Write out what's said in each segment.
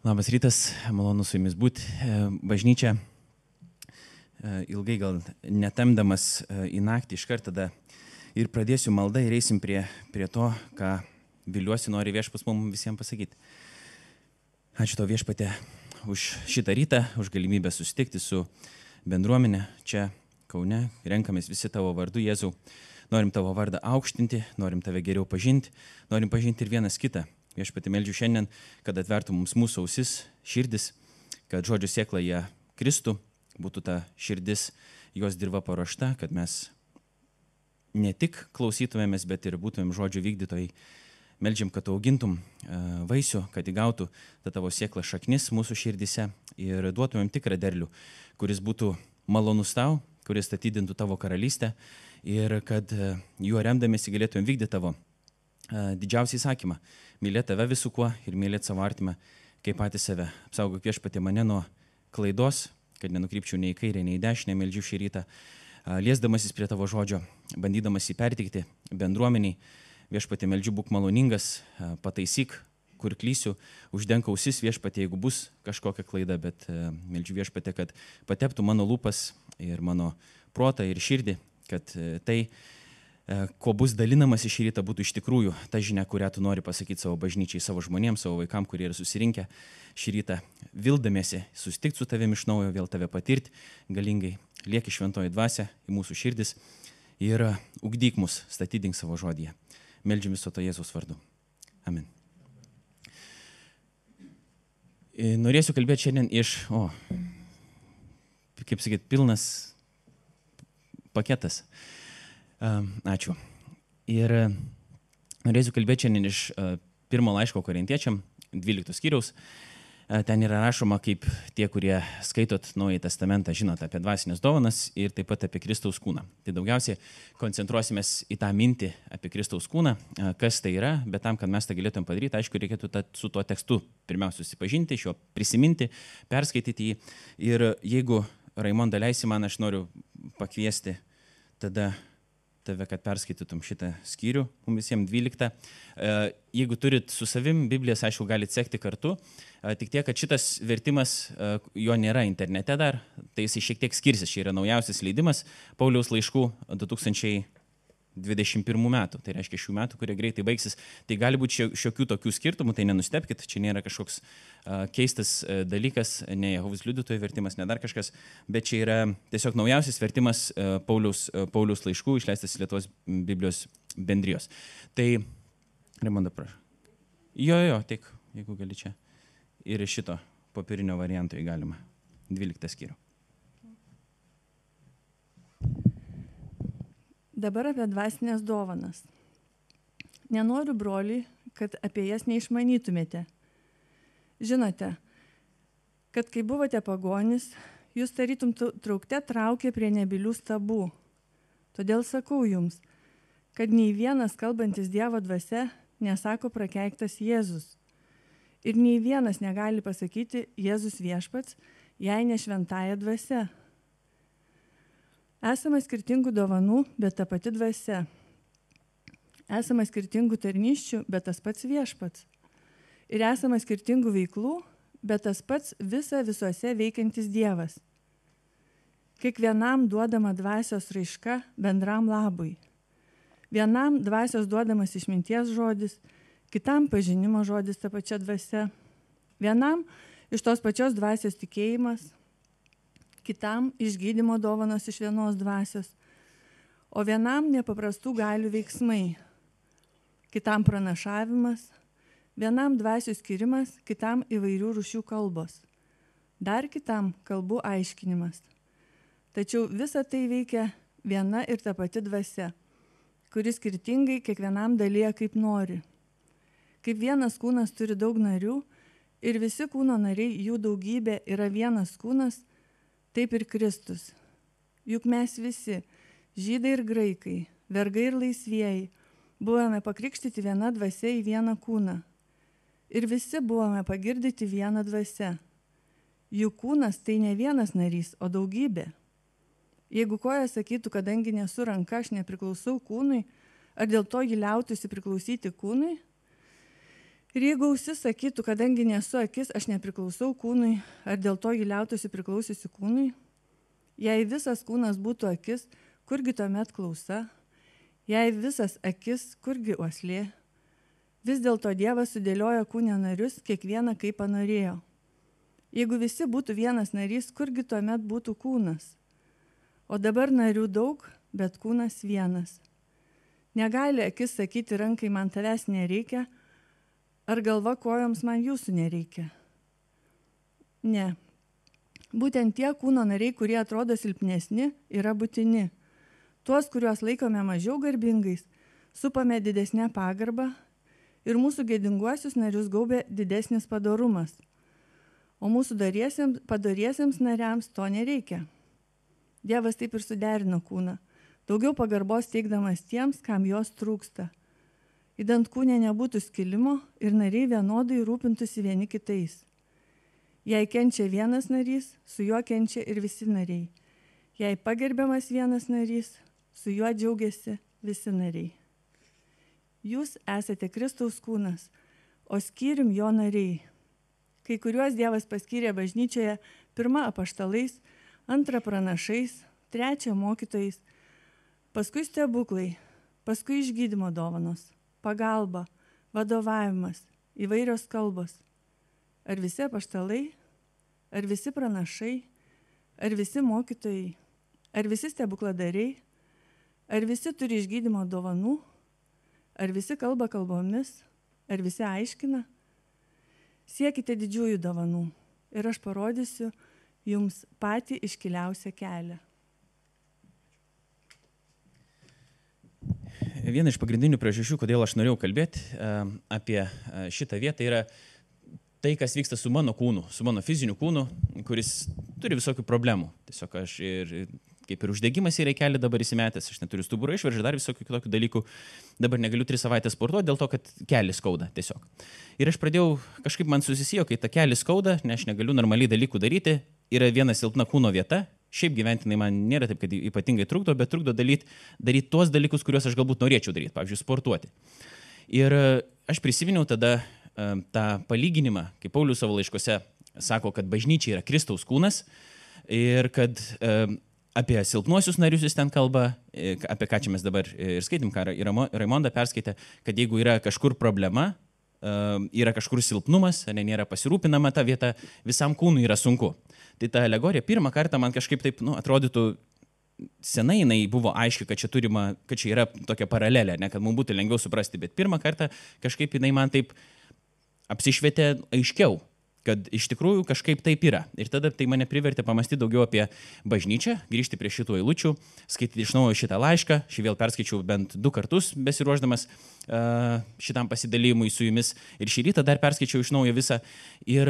Labas rytas, malonu su jumis būti. Bažnyčia ilgai gal netemdamas į naktį iškart tada ir pradėsiu maldą ir eisim prie to, ką viliuosi nori viešpats mums visiems pasakyti. Ačiū tau viešpatė už šitą rytą, už galimybę susitikti su bendruomenė čia Kaune. Renkamės visi tavo vardu, Jėzau. Norim tavo vardą aukštinti, norim tave geriau pažinti, norim pažinti ir vienas kitą. Viešpatį meldžiu šiandien, kad atvertų mums mūsų ausis, širdis, kad žodžio sėkla jie kristų, būtų ta širdis, jos dirba paruošta, kad mes ne tik klausytumėmės, bet ir būtumėm žodžio vykdytojai. Meldžiam, kad augintum vaisių, kad įgautų tą tavo sėklą šaknis mūsų širdise ir duotumėm tikrą derlių, kuris būtų malonus tau, kuris statydintų tavo karalystę ir kad juo remdamėsi galėtumėm vykdyti tavo didžiausią įsakymą. Mylėti tave visų kuo ir mylėti savo artimą kaip patį save. Apsaugok viešpatie mane nuo klaidos, kad nenukrypčiau nei į kairę, nei į dešinę, meldžiu šį rytą, liesdamasis prie tavo žodžio, bandydamas jį perteikti bendruomeniai. Viešpatie meldžiu, būk maloningas, pataisyk, kur klysiu, uždenk ausis viešpatie, jeigu bus kažkokia klaida, bet meldžiu viešpatie, kad pateptų mano lūpas ir mano protą ir širdį, kad tai, ko bus dalinamas iš ryto, būtų iš tikrųjų ta žinia, kurią tu nori pasakyti savo bažnyčiai, savo žmonėms, savo vaikams, kurie yra susirinkę šį rytą, vildamiesi susitikti su tavimi iš naujo, vėl tave patirti galingai. Lieki šventoji dvasia į mūsų širdis ir ugdyk mus, statydink savo žodyje. Meldžiu viso to Jėzaus vardu. Amen. Norėsiu kalbėti šiandien iš, kaip sakyt, pilnas paketas. Ačiū. Ir norėsiu kalbėti šiandien iš pirmo laiško Korintiečiam, 12 skyriaus. Ten yra rašoma, kaip tie, kurie skaitot Naująjį testamentą, žinot apie dvasinės dovanas ir taip pat apie Kristaus kūną. Tai daugiausiai koncentruosimės į tą mintį apie Kristaus kūną, kas tai yra, bet tam, kad mes tą galėtum padaryti, aišku, reikėtų su tuo tekstu pirmiausia susipažinti, šio prisiminti, perskaityti jį. Ir jeigu Raimonda leisi man, aš noriu pakviesti tada tave, kad perskaitytum šitą skyrių, mums visiems 12. Jeigu turit su savim Biblijas, aišku, galite sekti kartu. Tik tiek, kad šitas vertimas, jo nėra internete dar, tai jis šiek tiek skirsis. Čia yra naujausias leidimas Pauliaus laiškų 2021 metų. Tai reiškia šių metų, kurie greitai baigsis. Tai gali būti šiokių tokių skirtumų, tai nenustebkit, čia nėra kažkoks keistas dalykas, ne Jehovos liudytojų vertimas, ne dar kažkas, bet čia yra tiesiog naujausias vertimas Pauliaus laiškų, išleistas Lietuvos Biblijos bendrijos. Tai, Raimonda, prašau. Jo, tik, jeigu gali čia. Ir šito popierinio varianto įgalima. 12 skyrių. Dabar apie dvasinės dovanas. Nenoriu, broliai, kad apie jas neišmanytumėte. Žinote, kad kai buvote pagonis, jūs tarytum traukte traukė prie nebylių stabų. Todėl sakau jums, kad nei vienas kalbantis Dievo dvasia nesako prakeiktas Jėzus. Ir nei vienas negali pasakyti Jėzus viešpats, jei ne šventąja dvasia. Esama skirtingų dovanų, bet ta pati dvasia. Esama skirtingų tarnysčių, bet tas pats viešpats. Ir esama skirtingų veiklų, bet tas pats visuose veikiantis Dievas. Kiekvienam duodama dvasios raiška bendram labui. Vienam dvasios duodamas išminties žodis, kitam pažinimo žodis ta pačia dvasia. Vienam iš tos pačios dvasios tikėjimas, kitam išgydymo dovanos iš vienos dvasios, o vienam nepaprastų galių veiksmai, kitam pranašavimas, vienam dvasių skirimas, kitam įvairių rūšių kalbos, dar kitam kalbų aiškinimas. Tačiau visa tai veikia viena ir ta pati dvasia, kuris skirtingai kiekvienam dalyja kaip nori. Kaip vienas kūnas turi daug narių ir visi kūno nariai, jų daugybė yra vienas kūnas, taip ir Kristus. Juk mes visi, žydai ir graikai, vergai ir laisvieji, buvome pakrikštyti viena dvasia į vieną kūną. Ir visi buvome pagirdyti vieną dvasia. Jų kūnas tai ne vienas narys, o daugybė. Jeigu koja sakytų, kadangi nesu ranka, aš nepriklausau kūnui, ar dėl to ji liautųsi priklausyti kūnui? Ir jeigu ausis sakytų, kadangi nesu akis, aš nepriklausau kūnui, ar dėl to jį liautųsi priklausiusi kūnui, jei visas kūnas būtų akis, kurgi tuomet klausa, jei visas akis, kurgi uoslė, vis dėlto Dievas sudėliojo kūne narius, kiekvieną kaip panorėjo. Jeigu visi būtų vienas narys, kurgi tuomet būtų kūnas? O dabar narių daug, bet kūnas vienas. Negali akis sakyti rankai, man tavęs nereikia, ar galva kojoms, man jūsų nereikia. Ne. Būtent tie kūno nariai, kurie atrodo silpnesni, yra būtini. Tuos, kuriuos laikome mažiau garbingais, supame didesnę pagarbą ir mūsų gėdinguosius narius gaubia didesnis padorumas. O mūsų padoriesiems nariams to nereikia. Dievas taip ir suderino kūną, daugiau pagarbos teikdamas tiems, kam jos trūksta. Idant kūne nebūtų skilimo ir nariai vienodai rūpintųsi vieni kitais. Jei kenčia vienas narys, su juo kenčia ir visi nariai. Jei pagerbiamas vienas narys, su juo džiaugiasi visi nariai. Jūs esate Kristaus kūnas, o skyrium jo nariai. Kai kuriuos Dievas paskyrė bažnyčioje, 1 apaštalais, 2 pranašais, 3 mokytojais, paskui stebuklai, paskui išgydymo dovanos, pagalba, vadovavimas, įvairios kalbos. Ar visi apaštalai, ar visi pranašai, ar visi mokytojai, ar visi stebukladariai, ar visi turi išgydymo dovanų, ar visi kalba kalbomis, ar visi aiškina? Siekite didžiųjų dovanų ir aš parodysiu jums patį iškiliausią kelią. Viena iš pagrindinių priežasčių, kodėl aš norėjau kalbėti apie šitą vietą, yra tai, kas vyksta su mano kūnu, su mano fiziniu kūnu, kuris turi visokių problemų. Tiesiog aš kaip ir uždegimas į reikelį dabar įsimetęs, aš neturiu stuburo išvaržą, dar visokių kitokių dalykų. Dabar negaliu 3 savaitės sportuoti dėl to, kad kelį skauda tiesiog. Ir aš pradėjau, kažkaip man susisijo, kai ta kelį skauda, nes aš negaliu normaliai dalykų daryti, yra viena silpna kūno vieta. Šiaip gyventinai man nėra taip, kad ypatingai trukdo, bet trukdo daryti tuos dalykus, kuriuos aš galbūt norėčiau daryti, pavyzdžiui, sportuoti. Ir aš prisiminiau tada tą palyginimą, kaip Paulius savo laiškose sako, kad bažnyčia yra Kristaus kūnas ir kad apie silpnuosius narius jis ten kalba, apie ką čia mes dabar ir skaitėm, ką Raimonda perskaitė, kad jeigu yra kažkur problema, yra kažkur silpnumas, nėra pasirūpinama ta vieta, visam kūnui yra sunku. Tai ta alegorija pirmą kartą man kažkaip taip atrodytų, senai jinai buvo aiški, kad čia yra tokia paralelė, ne, kad mums būtų lengviau suprasti, bet pirmą kartą kažkaip jinai man taip apsišvietė aiškiau, kad iš tikrųjų kažkaip taip yra. Ir tada tai mane privertė pamastyti daugiau apie bažnyčią, grįžti prie šitų eilučių, skaityti iš naujo šitą laišką. Šį vėl perskaičiau bent 2 kartus besiruošdamas šitam pasidalymui su jumis. Ir šį rytą dar perskaičiau iš naujo visą. Ir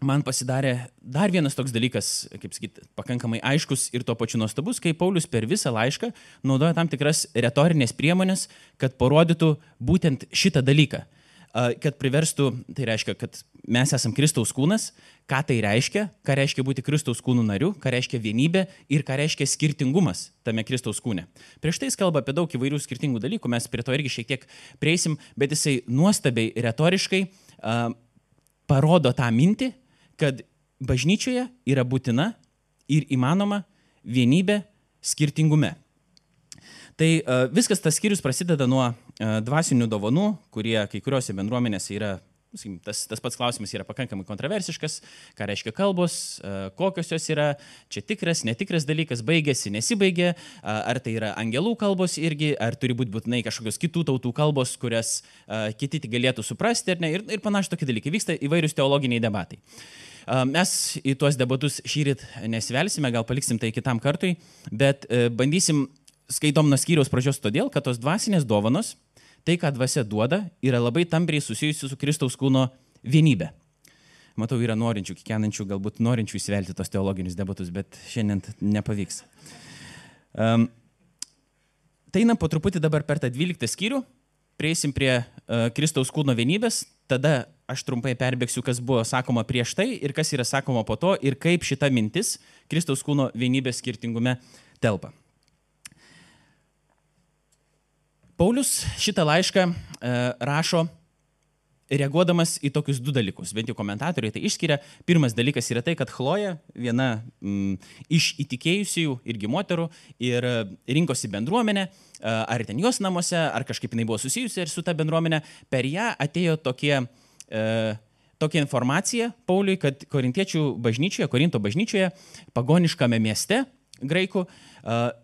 man pasidarė dar vienas toks dalykas, kaip sakyti, pakankamai aiškus ir tuo pačiu nuostabus, kai Paulius per visą laišką naudoja tam tikras retorinės priemonės, kad parodytų būtent šitą dalyką. Kad priverstų, tai reiškia, kad mes esam Kristaus kūnas, ką tai reiškia, ką reiškia būti Kristaus kūnų nariu, ką reiškia vienybė ir ką reiškia skirtingumas tame Kristaus kūne. Prieš tai jis kalba apie daug įvairių skirtingų dalykų, mes prie to irgi šiek tiek prieisim, bet jisai nuostabiai retoriškai parodo tą mintį, kad bažnyčioje yra būtina ir įmanoma vienybė skirtingume. Tai viskas tas skyrius prasideda nuo dvasinių dovanų, kurie kai kuriuose bendruomenėse yra, tas pats klausimas yra pakankamai kontroversiškas, ką reiškia kalbos, kokios jos yra, čia tikras, netikras dalykas, baigėsi, nesibaigė, ar tai yra angelų kalbos irgi, ar turi būti būtinai kažkokios kitų tautų kalbos, kurias kiti galėtų suprasti, ir panašiai tokie dalykai. Vyksta įvairius teologiniai debatai. Mes į tuos debatus šįryt nesivelsime, gal paliksim tai kitam kartui, bet bandysim skaitom nuo skyriaus pradžios todėl, kad tos dvasinės dovanos, tai, ką dvasia duoda, yra labai tampriai susijusi su Kristaus kūno vienybė. Matau, yra norinčių, kikenančių, galbūt norinčių įsivelti tos teologinius debatus, bet šiandien nepavyks. Tai einam po truputį dabar per tą 12 skyrių, prieisim prie Kristaus kūno vienybės, tada aš trumpai perbėgsiu, kas buvo sakoma prieš tai ir kas yra sakoma po to ir kaip šita mintis Kristaus kūno vienybės skirtingume telpa. Paulius šitą laišką rašo reaguodamas į tokius du dalykus, bent jau komentatoriai tai išskiria. Pirmas dalykas yra tai, kad Chloja, viena iš įtikėjusių irgi moterų, ir rinkosi bendruomenę, ar ten jos namuose, ar kažkaip jinai buvo susijusi ir su ta bendruomenė, per ją atėjo tokia informacija Pauliui, kad Korintiečių bažnyčioje, Korinto bažnyčioje, pagoniškame mieste, graikų,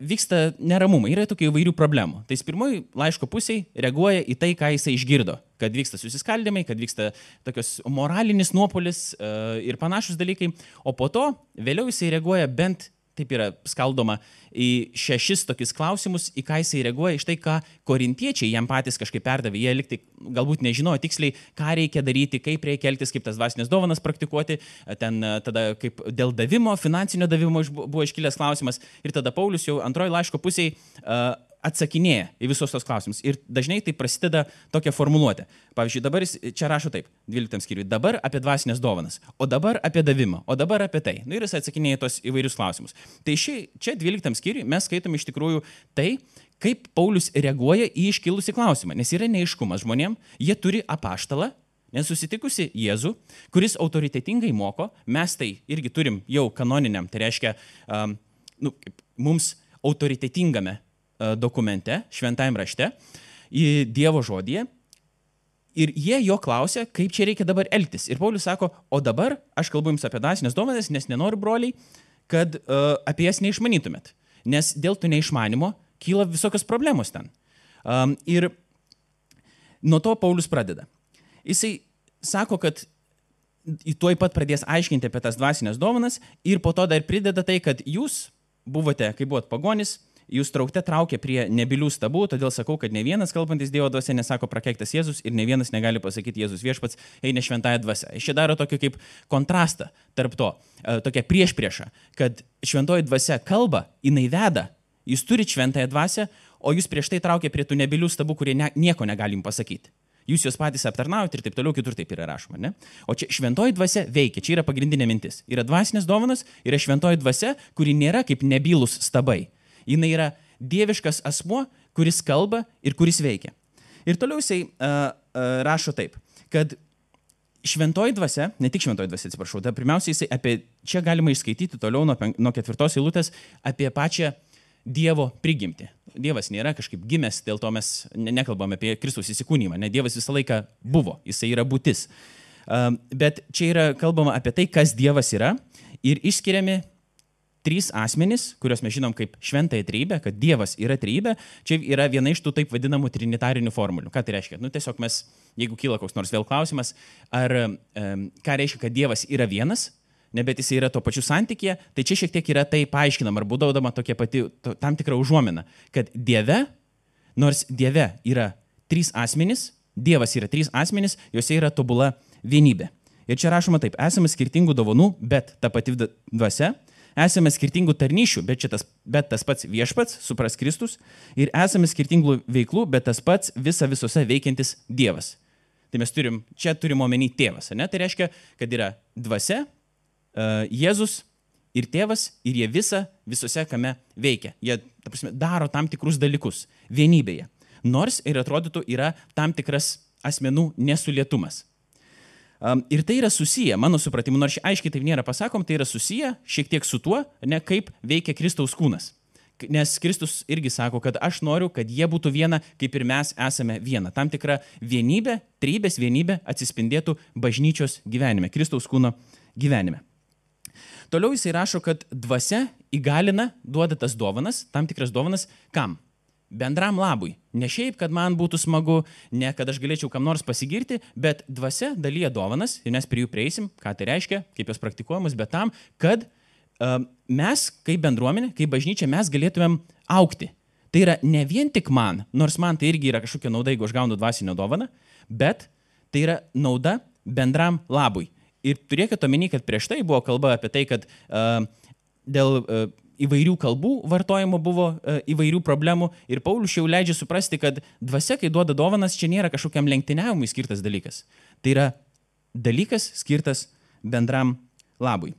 vyksta neramumai, yra tokių įvairių problemų. Tai jis pirmoji laiško pusėje reaguoja į tai, ką jisai išgirdo, kad vyksta susiskaldimai, kad vyksta tokios moralinis nuopolis ir panašus dalykai, o po to vėliau jisai reaguoja bent, taip yra skaldoma, į 6 tokius klausimus, į ką jisai reaguoja, iš tai, ką korintiečiai jam patys kažkaip perdavė. Jie liktai galbūt nežinojo tiksliai, ką reikia daryti, kaip reikia elgtis, kaip tas dvasinės dovanas praktikuoti. Ten tada kaip dėl davimo, finansinio davimo buvo iškilęs klausimas. Ir tada Paulius jau antroji laiško pusėje atsakinėja į visus tos klausimus. Ir dažnai tai prasideda tokia formuluotė. Pavyzdžiui, dabar jis čia rašo taip, 12 skyriui, dabar apie dvasinės dovanas, o dabar apie davimą, o dabar apie tai. Ir jis atsakinėja tos įvairius klausimus. Tai čia 12 skyriui mes skaitom iš tikrųjų tai, kaip Paulius reaguoja į iškilusį klausimą. Nes yra neaiškumas žmonėm, jie turi apaštalą, nesusitikusi Jėzų, kuris autoritetingai moko, mes tai irgi turim jau kanoniniam, tai reiškia mums autoritetingame dokumente, šventajame rašte, į Dievo žodyje. Ir jie jo klausia, kaip čia reikia dabar elgtis. Ir Paulius sako, o dabar aš kalbu jums apie dvasinės dovanas, nes nenoriu, broliai, kad apie jas neišmanytumėt. Nes dėl to neišmanimo kyla visokios problemos ten. Ir nuo to Paulius pradeda. Jisai sako, kad tuoj pat pradės aiškinti apie tas dvasinės dovanas ir po to dar prideda tai, kad jūs buvote, kai buvot pagonis, jūs traukė prie nebylių stabų, todėl sakau, kad ne vienas kalbantis Dievo dvasia nesako prakeiktas Jėzus ir ne vienas negali pasakyti Jėzus viešpats eina šventąją dvasią. Jis čia daro tokį kaip kontrastą tarp to, tokia priešprieša, kad šventoji dvasia kalba, jinai veda, jūs turite šventąją dvasią, o jūs prieš tai traukė prie tų nebylių stabų, kurie nieko negalim pasakyti. Jūs juos patys aptarnaujate ir taip toliau, kitur taip yra rašoma, ne? O čia šventoji dvasia veikia, čia yra pagrindinė mintis. Yra dvasinės dovanos, yra šventoji dvasia, kuri nėra kaip nebylus stabai. Jis yra dieviškas asmuo, kuris kalba ir kuris veikia. Ir toliau jisai rašo taip, kad šventoji dvasia, ne tik šventoji dvasia, atsiprašau, tai pirmiausia jisai čia galima išskaityti toliau nuo 4 eilutės apie pačią Dievo prigimtį. Dievas nėra kažkaip gimęs, dėl to mes nekalbame apie Kristaus įsikūnymą, ne, Dievas visą laiką buvo, jisai yra būtis. Bet čia yra kalbama apie tai, kas Dievas yra ir išskiriami 3 asmenys, kuriuos mes žinom kaip šventąją trejybę, kad Dievas yra trejybė, čia yra viena iš tų taip vadinamų trinitarinių formulių. Ką tai reiškia? Tiesiog mes, jeigu kyla koks nors vėl klausimas, ką reiškia, kad Dievas yra vienas, bet jis yra tuo pačiu santykyje, tai čia šiek tiek yra tai paaiškinama ar būdaudama tokia pati tam tikra užuomina, kad Dieve, nors Dieve yra 3 asmenys, Dievas yra 3 asmenys, juose yra tobula vienybė. Ir čia rašoma taip, esame skirtingų dovanų, bet ta pati dvasia, esame skirtingų tarnyšių, bet tas pats viešpats, supras Kristus, ir esame skirtingų veiklų, bet tas pats visose veikiantis Dievas. Tai mes čia turim omeny tėvas, ne? Tai reiškia, kad yra dvasia, Jėzus ir tėvas, ir jie visose kame veikia. Jie, ta prasme, daro tam tikrus dalykus vienybėje. Nors ir atrodytų yra tam tikras asmenų nesulietumas. Ir tai yra susiję, mano supratimu, nors aiškiai taip nėra pasakom, tai yra susiję šiek tiek su tuo, ne kaip veikia Kristaus kūnas. Nes Kristus irgi sako, kad aš noriu, kad jie būtų viena, kaip ir mes esame viena. Tam tikra vienybė, trejybės vienybė atsispindėtų bažnyčios gyvenime, Kristaus kūno gyvenime. Toliau jisai rašo, kad dvasia įgalina, duoda tas dovanas, tam tikras dovanas, kam? Bendram labui. Ne šiaip, kad man būtų smagu, ne kad aš galėčiau kam nors pasigirti, bet dvasia dalyja dovanas ir mes prie jų prieisim, ką tai reiškia, kaip jos praktikuojamos, bet tam, kad mes, kaip bendruomenė, kaip bažnyčia, mes galėtumėm augti. Tai yra ne vien tik man, nors man tai irgi yra kažkokia nauda, jeigu aš gaunu dvasinę dovaną, bet tai yra nauda bendram labui. Ir turėkite omeny, kad prieš tai buvo kalba apie tai, kad dėl įvairių kalbų vartojimo buvo įvairių problemų ir Paulius jau leidžia suprasti, kad dvasia, kai duoda dovanas, čia nėra kažkokiam lenktyniavimui skirtas dalykas. Tai yra dalykas skirtas bendram labui.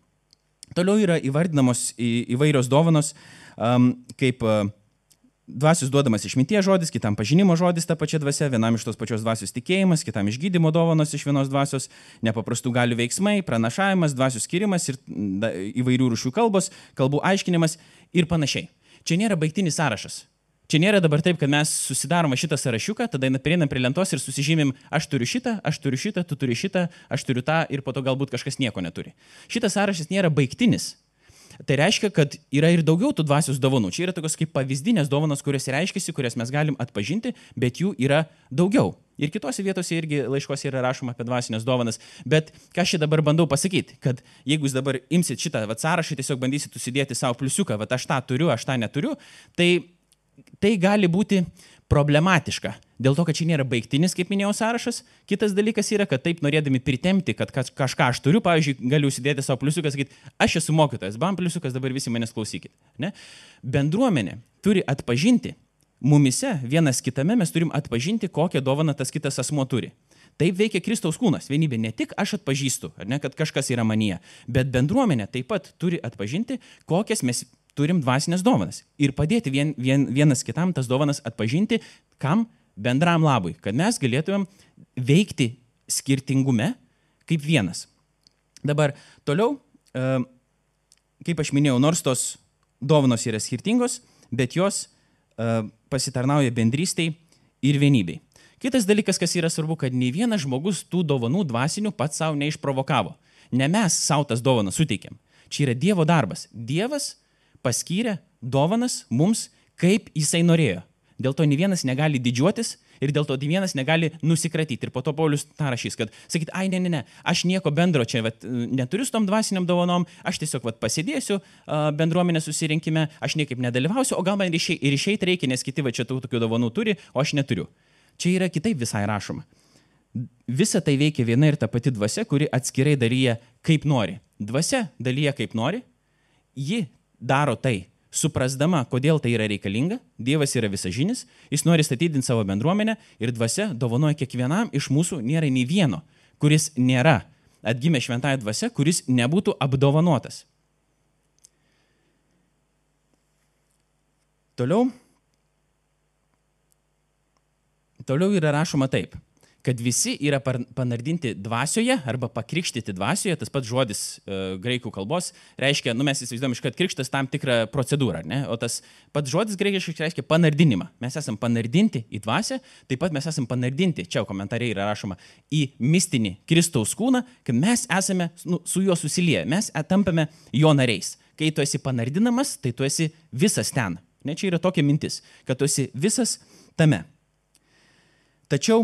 Toliau yra įvardinamos įvairios dovanos, kaip dvasios duodamas išminties žodis, kitam pažinimo žodis ta pačia dvasia, vienam iš tos pačios dvasios tikėjimas, kitam išgydymo dovanos iš vienos dvasios, nepaprastų galių veiksmai, pranašavimas, dvasios skirimas ir įvairių rūšių kalbos, kalbų aiškinimas ir panašiai. Čia nėra baigtinis sąrašas. Čia nėra dabar taip, kad mes susidarome šitą sąrašiuką, tada prieinam prie lentos ir susižymim, aš turiu šitą, tu turi šitą, aš turiu tą ir po to galbūt kažkas nieko neturi. Šitas sąrašas nėra baigtinis. Tai reiškia, kad yra ir daugiau tų dvasios dovanų. Čia yra tokios kaip pavyzdinės dovanos, kurios reiškiasi, kurias mes galim atpažinti, bet jų yra daugiau. Ir kitose vietose irgi laiškose yra rašoma apie dvasinės dovanas. Bet ką aš čia dabar bandau pasakyti, kad jeigu jūs dabar imsit šitą sąrašą, tiesiog bandysit susidėti savo pliusiuką, aš tą turiu, aš tą neturiu, tai gali būti problematiška. Dėl to, kad čia nėra baigtinis, kaip minėjau, sąrašas. Kitas dalykas yra, kad taip norėdami pritempti, kad kažką aš turiu, pavyzdžiui, galiu užsidėti savo pliusiuką, sakyti, aš esu mokytojas, bam pliusiukas, dabar visi manęs klausykit. Ne? Bendruomenė turi atpažinti, mumise vienas kitame mes turim atpažinti, kokią dovaną tas kitas asmuo turi. Taip veikia Kristaus kūnas, vienybė. Ne tik aš atpažįstu, ar ne, kad kažkas yra manyje, bet bendruomenė taip pat turi atpažinti, kokias mes turim dvasinės dovanas ir padėti vienas kitam tas dovanas atpažinti, kam bendram labui, kad mes galėtumėm veikti skirtingume kaip vienas. Dabar toliau, kaip aš minėjau, nors tos dovanos yra skirtingos, bet jos pasitarnauja bendrystei ir vienybei. Kitas dalykas, kas yra svarbu, kad nei vienas žmogus tų dovanų dvasinių pats savo neišprovokavo. Ne mes savo tas dovanas suteikėm. Čia yra Dievo darbas. Dievas paskyrė dovanas mums, kaip jisai norėjo. Dėl to nei vienas negali didžiuotis ir dėl to nei vienas negali nusikratyti. Ir po to Paulius tą rašys, kad sakyt, ne, aš nieko bendro čia neturiu su tom dvasiniam dovanom, aš tiesiog pasėdėsiu bendruomenės susirinkime, aš niekaip nedalyvausiu, o gal man ir išeiti reikia, nes kiti čia tokių dovanų turi, o aš neturiu. Čia yra kitaip visai rašoma. Visa tai veikia viena ir ta pati dvasia, kuri atskirai dalyja kaip nori. Dvasia dalyja kaip nori, ji daro tai, suprasdama, kodėl tai yra reikalinga, Dievas yra visažinis, jis nori statydinti savo bendruomenę ir dvasia dovanoja kiekvienam iš mūsų, nėra nei vieno, kuris nėra atgimę šventąją dvasia, kuris nebūtų apdovanotas. Toliau yra rašoma taip, kad visi yra panardinti dvasioje arba pakrikštyti dvasioje, tas pats žodis graikų kalbos reiškia, mes įsivaizduojam iškart krikštas tam tikrą procedūrą, ne? O tas pats žodis graikiškai reiškia panardinimą. Mes esam panardinti į dvasią, taip pat mes esam panardinti, čia komentariai yra rašoma, į mistinį Kristaus kūną, kad mes esame su juo susilieję, mes tampame jo nariais. Kai tu esi panardinamas, tai tu esi visas ten. Ne, čia yra tokia mintis, kad tu esi visas tame. Tačiau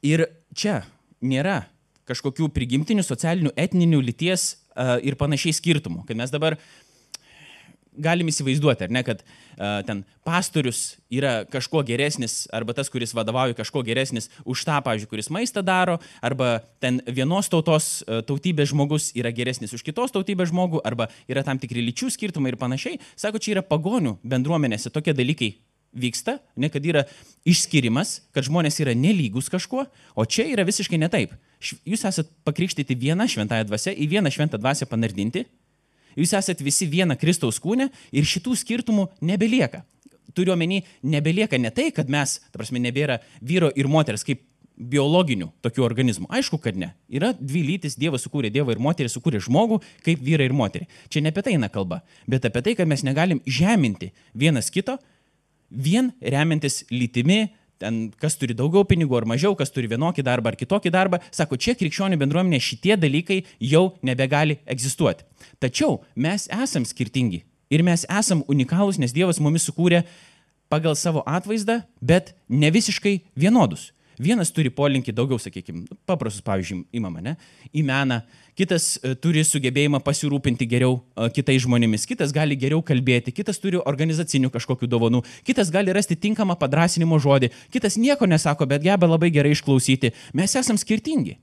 ir čia nėra kažkokių prigimtinių, socialinių, etninių, lyties ir panašiai skirtumų. Kad mes dabar galim įsivaizduoti, ar ne, kad ten pastorius yra kažko geresnis, arba tas, kuris vadovauja kažko geresnis už tą, pavyzdžiui, kuris maistą daro, arba ten vienos tautos tautybės žmogus yra geresnis už kitos tautybės žmogų, arba yra tam tikri lyčių skirtumai ir panašiai. Sako, čia yra pagonių bendruomenėse tokie dalykai vyksta, ne, kad yra išskirimas, kad žmonės yra nelygus kažkuo, o čia yra visiškai ne taip. Jūs esat pakrikštyti vieną šventąją dvasią, į vieną šventą dvasią panardinti, jūs esat visi viena Kristaus kūne ir šitų skirtumų nebelieka. Turiu omeny, nebelieka ne tai, kad mes, ta prasme, nebėra vyro ir moters kaip biologinių tokių organizmų. Aišku, kad ne. Yra dvi lytis, Dievas sukūrė Dievą ir moterį, sukūrė žmogų kaip vyrą ir moterį. Čia ne apie tai eina kalba, bet apie tai, kad mes negalim žeminti vienas kito, vien remiantis lytimi, ten, kas turi daugiau pinigų ar mažiau, kas turi vienokį darbą ar kitokį darbą. Sako, čia krikščionių bendruomenė šitie dalykai jau nebegali egzistuoti. Tačiau mes esam skirtingi ir mes esam unikalūs, nes Dievas mumis sukūrė pagal savo atvaizdą, bet ne visiškai vienodus. Vienas turi polinkį daugiau, sakykime, paprastus, pavyzdžiui, imama, ne, į meną, kitas turi sugebėjimą pasirūpinti geriau kitais žmonėmis, kitas gali geriau kalbėti, kitas turi organizacinių kažkokių dovanų, kitas gali rasti tinkamą padrąsinimo žodį, kitas nieko nesako, bet geba labai gerai išklausyti. Mes esam skirtingi.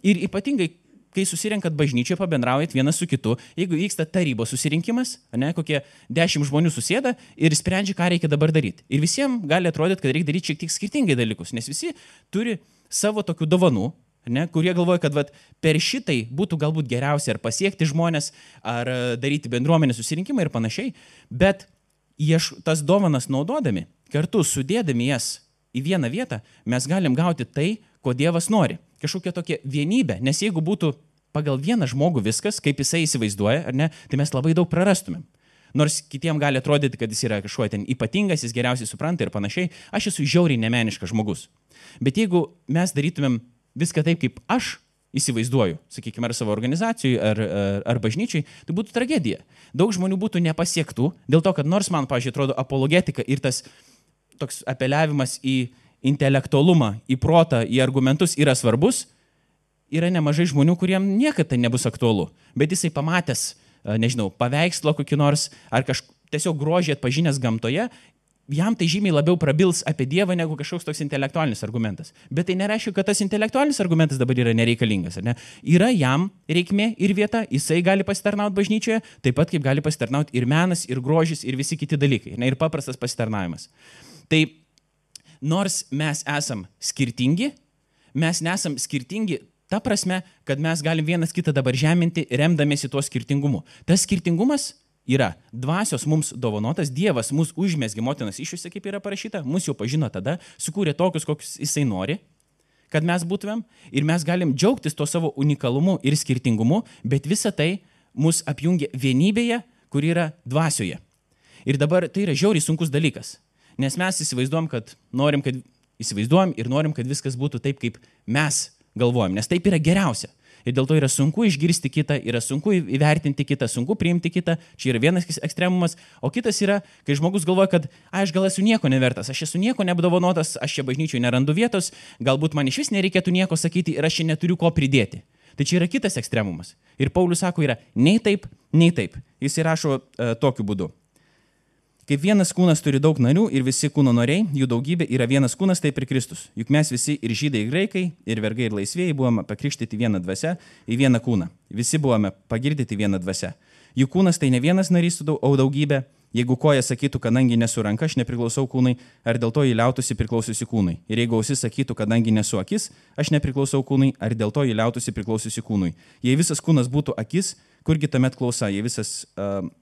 Ir ypatingai, kai susirenkat bažnyčioje, pabendraujat vienas su kitu, jeigu vyksta tarybos susirinkimas, ne, kokie 10 žmonių susėda ir sprendžia, ką reikia dabar daryti. Ir visiems gali atrodyti, kad reikia daryti šiek tiek skirtingai dalykus, nes visi turi savo tokių dovanų, ne, kurie galvoja, kad per šitai būtų galbūt geriausia ar pasiekti žmonės, ar daryti bendruomenės susirinkimą ir panašiai, bet tas dovanas naudodami, kartu sudėdami jas į vieną vietą, mes galim gauti tai, ko Dievas nori. Kažkokia tokia vienybė, nes jeigu būtų pagal vieną žmogų viskas, kaip jisai įsivaizduoja, ar ne, tai mes labai daug prarastumėm. Nors kitiem gali atrodyti, kad jis yra kažkuo ten ypatingas, jis geriausiai supranta ir panašiai, aš esu žiauriai nemeniškas žmogus. Bet jeigu mes darytumėm viską taip, kaip aš įsivaizduoju, sakykime, ar savo organizacijai, ar bažnyčiai, tai būtų tragedija. Daug žmonių būtų nepasiektų, dėl to, kad nors man, pavyzdžiui, atrodo apologetika ir tas toks apeliavimas į intelektualumą, į protą, į argumentus yra svarbus, yra nemažai žmonių, kuriem niekada tai nebus aktualu. Bet jisai pamatęs, nežinau, paveikslą kokį nors, ar tiesiog grožį atpažinęs gamtoje, jam tai žymiai labiau prabils apie Dievą negu kažkoks toks intelektualinis argumentas. Bet tai nereiškia, kad tas intelektualinis argumentas dabar yra nereikalingas. Ar ne? Yra jam reikmė ir vieta, jisai gali pasitarnauti bažnyčioje, taip pat kaip gali pasitarnauti ir menas, ir grožis, ir visi kiti dalykai. Ne? Ir paprastas pasitarnavimas. Tai nors mes esam skirtingi, mes nesam skirtingi ta prasme, kad mes galim vienas kitą dabar žeminti, remdamiesi tuo skirtingumu. Tas skirtingumas yra dvasios mums dovanotas, Dievas mus užmesgė motinos iššiose, kaip yra parašyta, mus jau pažino tada, sukūrė tokius, kokius jisai nori, kad mes būtumėm, ir mes galim džiaugtis to savo unikalumu ir skirtingumu, bet visa tai mus apjungia vienybėje, kur yra dvasioje. Ir dabar tai yra žiauriai sunkus dalykas, nes mes įsivaizduojam ir norim, kad viskas būtų taip, kaip mes galvojam, nes taip yra geriausia. Ir dėl to yra sunku išgirsti kitą, yra sunku įvertinti kitą, sunku priimti kitą. Čia yra vienas ekstremumas. O kitas yra, kai žmogus galvoja, kad aš gal esu nieko nevertas, aš esu nieko neapdovanotas, aš čia bažnyčiai nerandu vietos, galbūt man iš vis nereikėtų nieko sakyti ir aš čia neturiu ko pridėti. Tai čia yra kitas ekstremumas. Ir Paulius sako, yra nei taip, nei taip. Jis įrašo tokiu būdu. Kaip vienas kūnas turi daug narių ir visi kūno nariai, jų daugybė yra vienas kūnas, taip ir Kristus. Juk mes visi ir žydai, ir graikai, ir vergai, ir laisvėjai buvome pakrikštyti vieną dvasią į vieną kūną. Visi buvome pagirdyti vieną dvasią. Jų kūnas tai ne vienas narys, o daugybė. Jeigu koja sakytų, kadangi nesu ranka, aš nepriklausau kūnui, ar dėl to jį liautųsi priklausiusi kūnui. Ir jeigu ausis sakytų, kadangi nesu akis, aš nepriklausau kūnui, ar dėl to jį liautųsi priklausiusi kūnui. Jei visas kūnas būtų akis, kurgi tuomet klausa, jei visas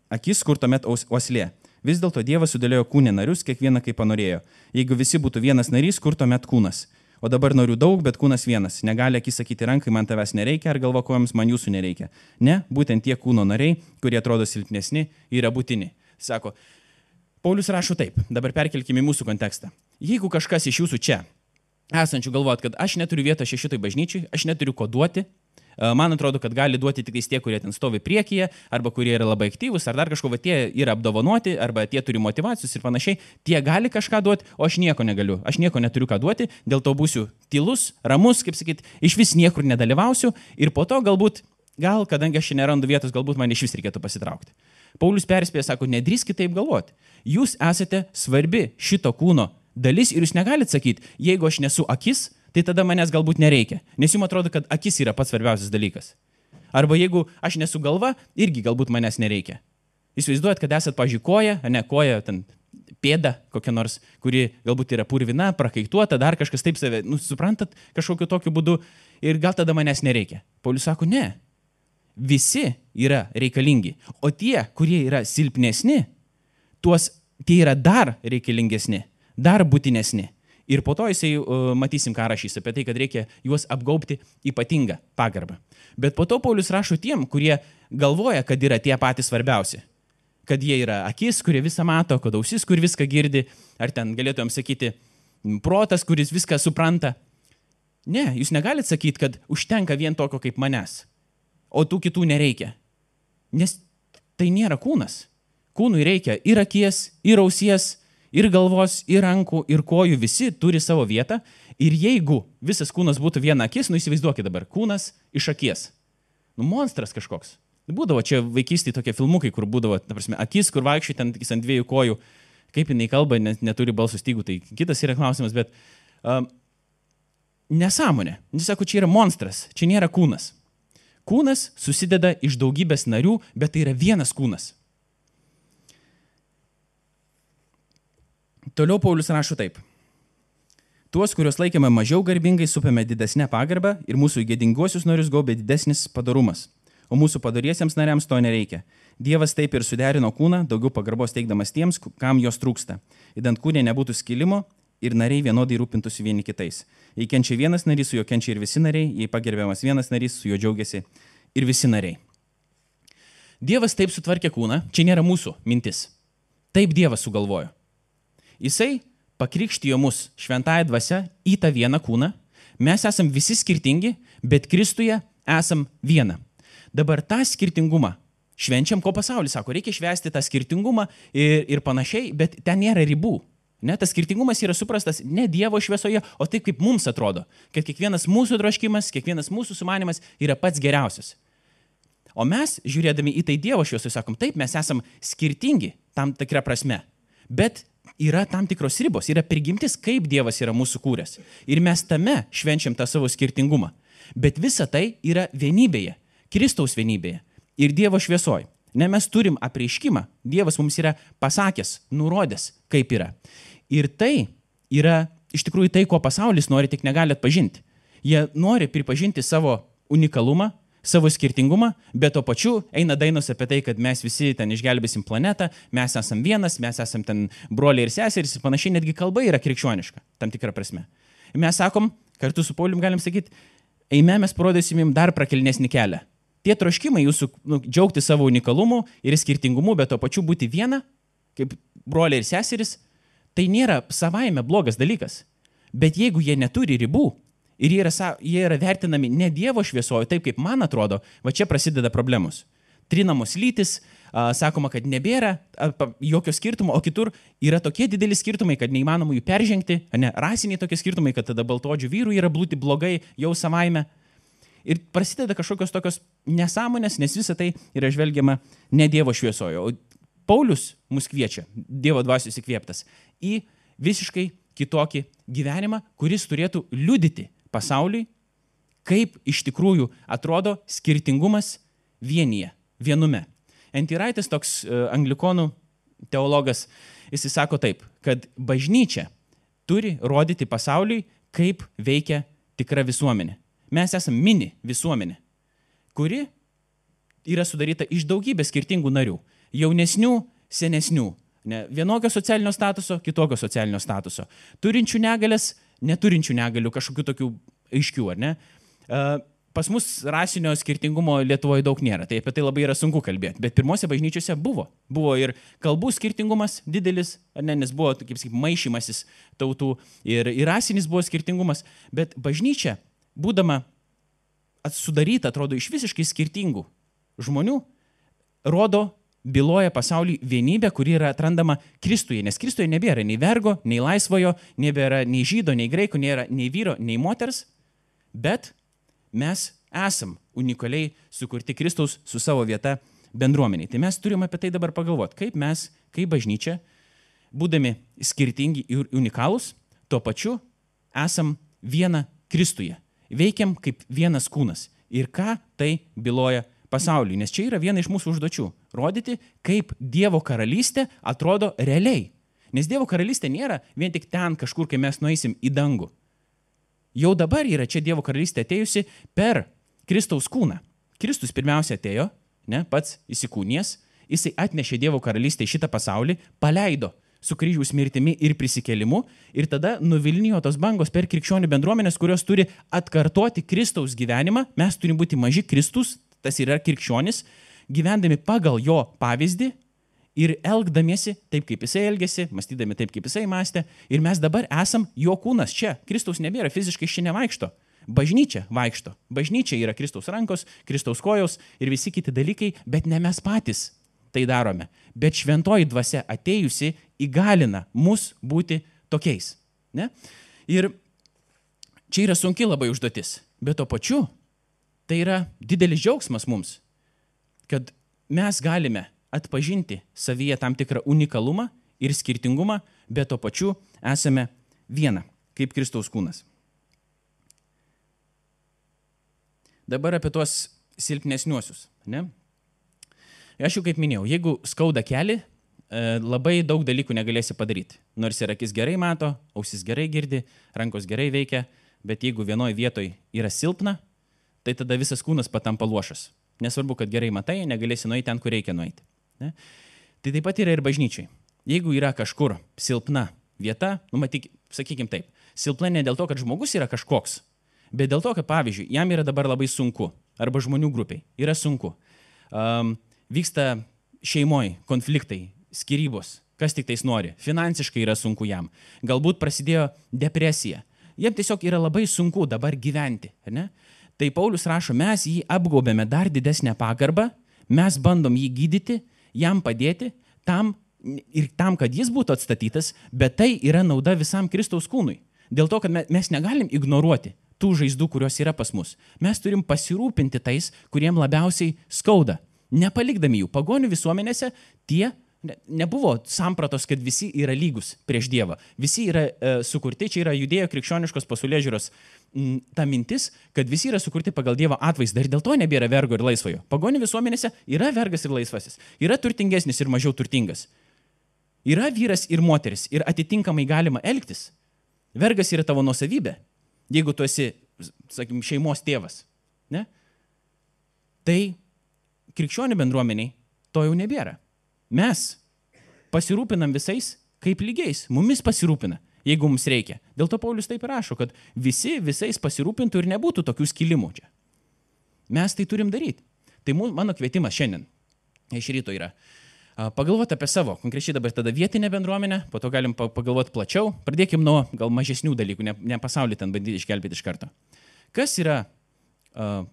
akis, kur tuomet uoslė. Vis dėlto Dievas sudėliojo kūne narius, kiekvieną kaip panorėjo. Jeigu visi būtų vienas narys, kur tuomet kūnas? O dabar narių daug, bet kūnas vienas. Negali akis sakyti rankai, man tavęs nereikia, ar galva kojoms, man jūsų nereikia. Ne, būtent tie kūno nariai, kurie atrodo silpnesni, yra būtini. Sako, Paulius rašo taip, dabar perkelkime į mūsų kontekstą. Jeigu kažkas iš jūsų čia esančių galvojat, kad aš neturiu vietos šitoj bažnyčiai, aš neturiu ko duoti, man atrodo, kad gali duoti tik tie, kurie ten stovi priekyje, arba kurie yra labai aktyvūs, ar dar kažko, va, tie yra apdovanoti, arba tie turi motyvacijos ir panašiai, tie gali kažką duoti, o aš nieko negaliu, aš nieko neturiu ką duoti, dėl to būsiu tylus, ramus, kaip sakyt, iš vis niekur nedalyvausiu ir po to gal, kadangi aš čia nerandu vietos, galbūt man iš vis reikėtų pasitraukti. Paulius perspėja, sako, nedrįskit taip galvoti. Jūs esate svarbi šito kūno dalis ir jūs negalit sakyti, jeigu aš nesu akis, tai tada manęs galbūt nereikia, nes jums atrodo, kad akis yra pats svarbiausias dalykas. Arba jeigu aš nesu galva, irgi galbūt manęs nereikia. Įsivaizduojat, kad esat, pažiūrėję, koja, koja, ten pėda kokia nors, kuri galbūt yra purvina, prakaituota, dar kažkas taip save, suprantat, kažkokiu tokiu būdu ir gal tada manęs nereikia. Paulius sako, ne, visi yra reikalingi, o tie, kurie yra silpnesni, tie yra dar reikalingesni, dar būtinesni. Ir po to jisai matysim, ką rašys apie tai, kad reikia juos apgaubti ypatingą pagarbą. Bet po to Paulius rašo tiem, kurie galvoja, kad yra tie patys svarbiausi. Kad jie yra akis, kurie visą mato, kad ausis, kur viską girdi, ar ten galėtumėm sakyti protas, kuris viską supranta. Ne, jūs negalit sakyti, kad užtenka vien tokio kaip manęs, o tų kitų nereikia. Nes tai nėra kūnas. Kūnui reikia ir akies, ir ausies, ir galvos, ir rankų, ir kojų, visi turi savo vietą. Ir jeigu visas kūnas būtų viena akis, įsivaizduokit dabar, kūnas iš akies. Monstras kažkoks. Būdavo čia vaikystėje tokie filmukai, kur būdavo, ta prasme, akis, kur vaikščiai ten ant dviejų kojų. Kaip jinai kalba, neturi balso stygų, tai kitas yra klausimas, bet nesąmonė. Jis sako, čia yra monstras, čia nėra kūnas. Kūnas susideda iš daugybės narių, bet tai yra vienas kūnas. Toliau Paulius rašo taip. Tuos, kuriuos laikėme mažiau garbingai, supėme didesnę pagarbą ir mūsų gėdinguosius narius gaubė didesnis padorumas. o mūsų padoriesiems nariams to nereikia. Dievas taip ir suderino kūną, daugiau pagarbos teikdamas tiems, kam jos trūksta. Idant kūne nebūtų skilimo ir nariai vienodai rūpintųsi vieni kitais. Jei kenčia vienas narys, su juo kenčia ir visi nariai, jei pagerbiamas vienas narys, su juo džiaugiasi ir visi nariai. Dievas taip sutvarkė kūną, čia nėra mūsų mintis. Taip Dievas sugalvojo. Jisai pakrikštijo mus šventąja dvasia į tą vieną kūną. Mes esam visi skirtingi, bet Kristuje esam viena. Dabar tą skirtingumą švenčiam, ko pasaulis sako, reikia švęsti tą skirtingumą ir panašiai, bet ten nėra ribų. Ne, tas skirtingumas yra suprastas ne Dievo šviesoje, o taip kaip mums atrodo, kad kiekvienas mūsų troškimas, kiekvienas mūsų sumanimas yra pats geriausias. O mes, žiūrėdami į tai Dievo šviesoje, sakom, taip, mes esam skirtingi tam tikrą prasme, bet yra tam tikros ribos, yra prigimtis, kaip Dievas yra mūsų kūręs. Ir mes tame švenčiam tą savo skirtingumą. Bet visa tai yra vienybėje, Kristaus vienybėje ir Dievo šviesoje. Ne, mes turim apreiškimą, Dievas mums yra pasakęs, nurodęs, kaip yra. Ir tai yra iš tikrųjų tai, ko pasaulis nori, tik negali atpažinti. Jie nori pripažinti savo unikalumą, savo skirtingumą, bet to pačiu eina dainos apie tai, kad mes visi ten išgelbėsim planetą, mes esam vienas, mes esam ten broliai ir seserys ir panašiai, netgi kalba yra krikščioniška, tam tikrą prasme. Ir mes sakom, kartu su Paulium galim sakyti, eime, mes parodysim jums dar prakelnesnį kelią. Tie troškimai jūsų džiaugti savo unikalumu ir skirtingumu, bet to pačiu būti viena, kaip broliai ir seserys, tai nėra savaime blogas dalykas. Bet jeigu jie neturi ribų ir jie yra vertinami ne Dievo šviesoje, taip kaip man atrodo, va čia prasideda problemos. Trinamos lytis, sakoma, kad nebėra jokio skirtumo, o kitur yra tokie dideli skirtumai, kad neįmanoma jų peržengti, ne, rasiniai tokie skirtumai, kad tada baltodžių vyrų yra būti blogai jau savaime. Ir prasideda kažkokios tokios nesąmonės, nes visa tai yra žvelgiama ne Dievo šviesoje. O Paulius mus kviečia, Dievo dvasios įkvėptas, į visiškai kitokį gyvenimą, kuris turėtų liudyti pasauliui, kaip iš tikrųjų atrodo skirtingumas vienume. N.T. Wrightas, toks anglikonų teologas, jis sako taip, kad bažnyčia turi rodyti pasauliui, kaip veikia tikra visuomenė. Mes esame mini visuomenė, kuri yra sudaryta iš daugybės skirtingų narių. Jaunesnių, senesnių. Ne, vienokio socialinio statuso, kitokio socialinio statuso. Turinčių negalės, neturinčių negalių, kažkokių tokių aiškių, ar ne? Pas mus rasinio skirtingumo Lietuvoje daug nėra, tai apie tai labai yra sunku kalbėti. Bet pirmose bažnyčiose buvo. Buvo ir kalbų skirtingumas didelis, ar ne, nes buvo, kaip sakyt, maišymasis tautų ir rasinis buvo skirtingumas. Bet bažnyčia, būdama sudaryta, atrodo, iš visiškai skirtingų žmonių, byloja pasauliui vienybę, kuri yra atrandama Kristuje, nes Kristuje nebėra nei vergo, nei laisvojo, nebėra nei žydo, nei graiko, nėra nei vyro, nei moters, bet mes esam unikaliai sukurti Kristaus su savo vieta bendruomeniai. Tai mes turim apie tai dabar pagalvoti, kaip mes, kaip bažnyčia, būdami skirtingi ir unikalūs, tuo pačiu esam viena Kristuje. Veikiam kaip vienas kūnas. Ir ką tai byloja pasauliui? Nes čia yra viena iš mūsų užduočių. Rodyti, kaip Dievo karalystė atrodo realiai. Nes Dievo karalystė nėra vien tik ten kažkur, kai mes nueisim į dangų. Jau dabar yra čia Dievo karalystė atėjusi per Kristaus kūną. Kristus pirmiausia atėjo, ne, pats įsikūnijęs, jisai atnešė Dievo karalystę į šitą pasaulį, paleido su kryžiaus mirtimi ir prisikėlimu ir tada nuvilnijo tos bangos per krikščionių bendruomenės, kurios turi atkartoti Kristaus gyvenimą. Mes turim būti maži Kristus, tas yra krikščionis, gyvendami pagal jo pavyzdį ir elgdamiesi taip, kaip jisai elgėsi, mąstydami taip, kaip jisai mąstė. Ir mes dabar esam jo kūnas čia. Kristaus nebėra, fiziškai čia nevaikšto. Bažnyčia vaikšto. Bažnyčia yra Kristaus rankos, Kristaus kojos ir visi kiti dalykai, bet ne mes patys tai darome. Bet šventoji dvasia atėjusi įgalina mus būti tokiais. Ne? Ir čia yra sunki labai užduotis, bet to pačiu tai yra didelis džiaugsmas mums, kad mes galime atpažinti savyje tam tikrą unikalumą ir skirtingumą, bet to pačiu esame viena, kaip Kristaus kūnas. Dabar apie tuos silpnesniuosius. Ne? Aš jau kaip minėjau, jeigu skauda kelį, labai daug dalykų negalėsi padaryti. Nors ir akis gerai mato, ausis gerai girdi, rankos gerai veikia, bet jeigu vienoje vietoje yra silpna, tai tada visas kūnas patampa luošas. nesvarbu, kad gerai matai, negalėsi nueiti ten, kur reikia nueiti. Ne? Tai taip pat yra ir bažnyčiai. Jeigu yra kažkur silpna vieta, matyk, sakykim taip, silpna ne dėl to, kad žmogus yra kažkoks, bet dėl to, kad, pavyzdžiui, jam yra dabar labai sunku, arba žmonių grupiai yra sunku. Vyksta šeimoje konfliktai, skyrybos, kas tik tais nori, finansiškai yra sunku jam, galbūt prasidėjo depresija, jam tiesiog yra labai sunku dabar gyventi, ne? Tai Paulius rašo, mes jį apgaubėme dar didesnę pagarbą, mes bandom jį gydyti, jam padėti, tam, kad jis būtų atstatytas, bet tai yra nauda visam Kristaus kūnui. Dėl to, kad mes negalim ignoruoti tų žaizdų, kurios yra pas mus. Mes turim pasirūpinti tais, kuriem labiausiai skauda. Nepalikdami jų. Pagonių visuomenėse tie nebuvo sampratos, kad visi yra lygus prieš Dievą. Visi yra sukurti, čia yra judėjo krikščioniškos pasaulėžiūros ta mintis, kad visi yra sukurti pagal Dievo atvaizdą ir dėl to nebėra vergo ir laisvojo. Pagonių visuomenėse yra vergas ir laisvasis. Yra turtingesnis ir mažiau turtingas. Yra vyras ir moteris ir atitinkamai galima elgtis. Vergas yra tavo nuosavybė, jeigu tu esi, sakykim, šeimos tėvas. Ne? Tai krikščionių bendruomeniai to jau nebėra. Mes pasirūpinam visais kaip lygiais, mumis pasirūpina, jeigu mums reikia. Dėl to Paulius taip rašo, kad visi visais pasirūpintų ir nebūtų tokių skilimų čia. Mes tai turim daryti. Tai mano kvietimas šiandien iš ryto yra pagalvoti apie savo, konkrečiai dabar tada vietinę bendruomenę, po to galim pagalvoti plačiau, pradėkim nuo gal mažesnių dalykų, ne pasaulį ten bandyti išgelbėti iš karto. Kas yra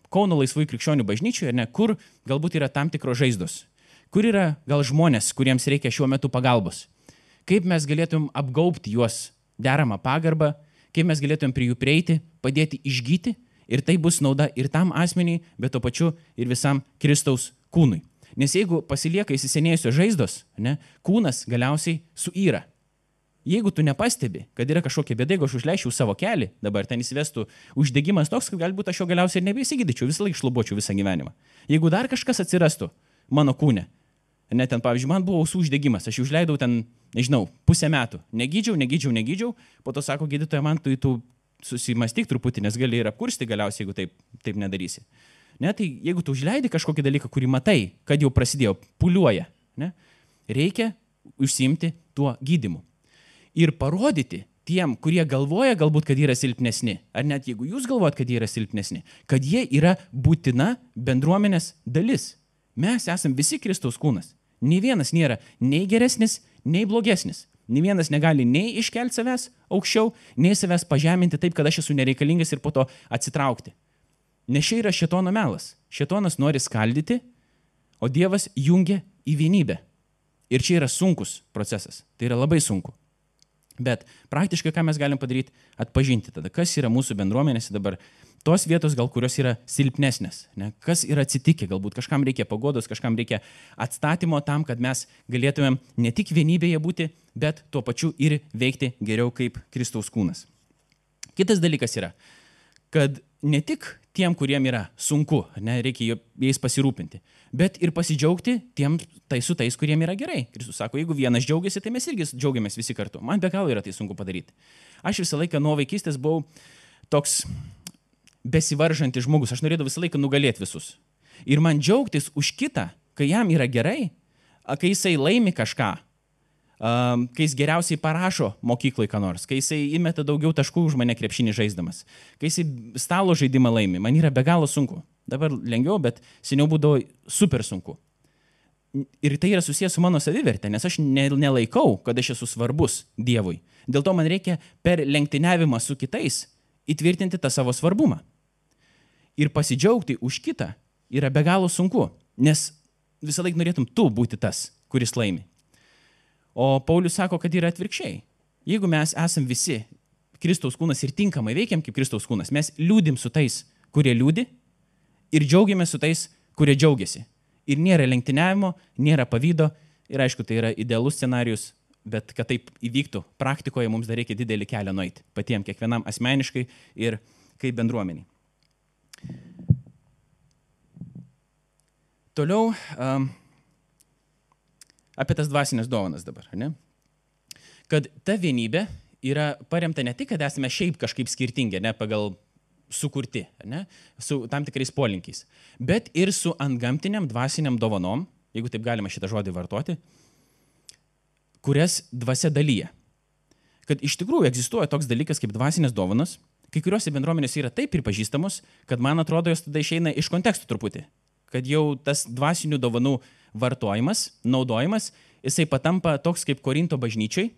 Kauno laisvųjų krikščionių bažnyčioje, ne, kur galbūt yra tam tikros žaizdos, kur yra gal žmonės, kuriems reikia šiuo metu pagalbos, kaip mes galėtumėm apgaubti juos deramą pagarbą, kaip mes galėtumėm prie jų prieiti, padėti išgyti ir tai bus nauda ir tam asmeniai, bet to pačiu ir visam Kristaus kūnui. Nes jeigu pasilieka įsisenėjusios žaizdos, ne, kūnas galiausiai suyra. Jeigu tu nepastebi, kad yra kažkokia bėda, jeigu aš užleičiau savo kelią, dabar ten įsivestų uždegimas toks, kad galbūt aš jo galiausiai ir nebeįsigydyčiau, visą laiką šlubuočiau visą gyvenimą. Jeigu dar kažkas atsirastų mano kūne, ne, ten, pavyzdžiui, man buvo ausų uždegimas, aš užleidau ten, nežinau, pusę metų, negydžiau, po to sako gydytoja, man tu susimastyk truputį, nes gali ir apkursti galiausiai, jeigu taip nedarysi. Ne, tai jeigu tu užleidi kažkokį dalyką, kurį matai, kad jau prasidėjo, puliuoja, ne, reikia užsiimti tuo gydymu. Ir parodyti tiem, kurie galvoja galbūt, kad yra silpnesni, ar net jeigu jūs galvojat, kad jie yra silpnesni, kad jie yra būtina bendruomenės dalis. Mes esam visi Kristaus kūnas. Nei vienas nėra nei geresnis, nei blogesnis. Nei vienas negali nei iškelti savęs aukščiau, nei savęs pažeminti taip, kad aš esu nereikalingas ir po to atsitraukti. Nes čia yra šėtono melas. Šėtonas nori skaldyti, o Dievas jungia į vienybę. Ir čia yra sunkus procesas. Tai yra labai sunku. Bet praktiškai ką mes galim padaryti? Atpažinti tada, kas yra mūsų bendruomenėse dabar. Tos vietos, gal kurios yra silpnesnės. Ne? Kas yra atsitikę? Galbūt kažkam reikia paguodos, kažkam reikia atstatymo tam, kad mes galėtumėm ne tik vienybėje būti, bet tuo pačiu ir veikti geriau kaip Kristaus kūnas. Kitas dalykas yra, kad ne tik tiem, kuriem yra sunku, ne, reikia jais pasirūpinti, bet ir pasidžiaugti su tais, kuriem yra gerai. Kristus sako, jeigu vienas džiaugiasi, tai mes irgi džiaugiamės visi kartu. Man be galo yra tai sunku padaryti. Aš visą laiką nuo vaikystės buvau toks besivaržantis žmogus. Aš norėdavau visą laiką nugalėti visus. Ir man džiaugtis už kitą, kai jam yra gerai, kai jisai laimi kažką, kai jis geriausiai parašo mokyklai ką nors, kai jisai įmeta daugiau taškų už mane krepšinį žaisdamas, kai jisai stalo žaidimą laimi, man yra be galo sunku. Dabar lengviau, bet seniau būdavo super sunku. Ir tai yra susijęs su mano savivertė, nes aš nelaikau, kad aš esu svarbus Dievui. Dėl to man reikia per lenktyniavimą su kitais įtvirtinti tą savo svarbumą. Ir pasidžiaugti už kitą yra be galo sunku, nes visą laiką norėtum tu būti tas, kuris laimi. O Paulius sako, kad yra atvirkščiai. Jeigu mes esam visi Kristaus kūnas ir tinkamai veikiam kaip Kristaus kūnas, mes liūdim su tais, kurie liūdi ir džiaugiamės su tais, kurie džiaugiasi. Ir nėra lenktyniavimo, nėra pavydo ir aišku, tai yra idealus scenarius, bet kad taip įvyktų praktikoje, mums dar reikia didelį kelią nueiti patiem, kiekvienam asmeniškai ir kaip bendruomeniai. Toliau apie tas dvasinės dovanas dabar, ne? Kad ta vienybė yra paremta ne tik, kad esame šiaip kažkaip skirtingi, ne, pagal sukurti, ne? Su tam tikrais polinkiais, bet ir su antgamtiniam dvasiniam dovanom, jeigu taip galima šitą žodį vartoti, kurias dvasia dalyja. Kad iš tikrųjų egzistuoja toks dalykas kaip dvasinės dovanos, kai kuriuose bendruomenėse yra taip pripažįstamos, kad man atrodo, jos tada išeina iš kontekstų truputį. Kad jau tas dvasinių dovanų vartojimas, naudojimas, jisai patampa toks kaip Korinto bažnyčiai.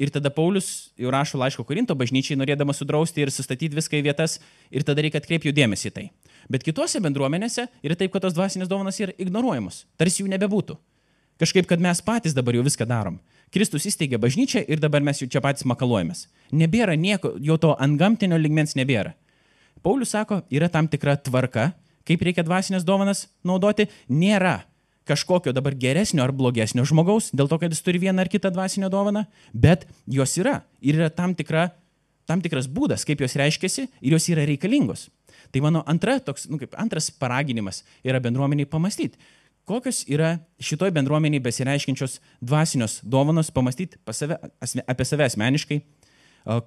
Ir tada Paulius jau rašo laiško Korinto bažnyčiai, norėdamas sudrausti ir sustatyti viską į vietas, ir tada reikia atkreipti jų dėmesį į tai. Bet kitose bendruomenėse yra taip, kad tos dvasinės dovanos yra ignoruojamos, tarsi jų nebebūtų. Kažkaip, kad mes patys dabar jau viską darom. Kristus įsteigė bažnyčią ir dabar mes jau čia patys makaluojamės. Nebėra nieko, jau to antgamtinio lygmens nebėra. Paulius sako, yra tam tikra tvarka, kaip reikia dvasinės dovanas naudoti, nėra kažkokio dabar geresnio ar blogesnio žmogaus, dėl to, kad jis turi vieną ar kitą dvasinę dovaną, bet jos yra. Ir yra tam tikras būdas, kaip jos reiškiasi ir jos yra reikalingos. Tai mano antras paraginimas yra bendruomeniai pamastyti, kokios yra šitoj bendruomeniai besireiškiančios dvasinios dovanos, pamastyti apie save asmeniškai,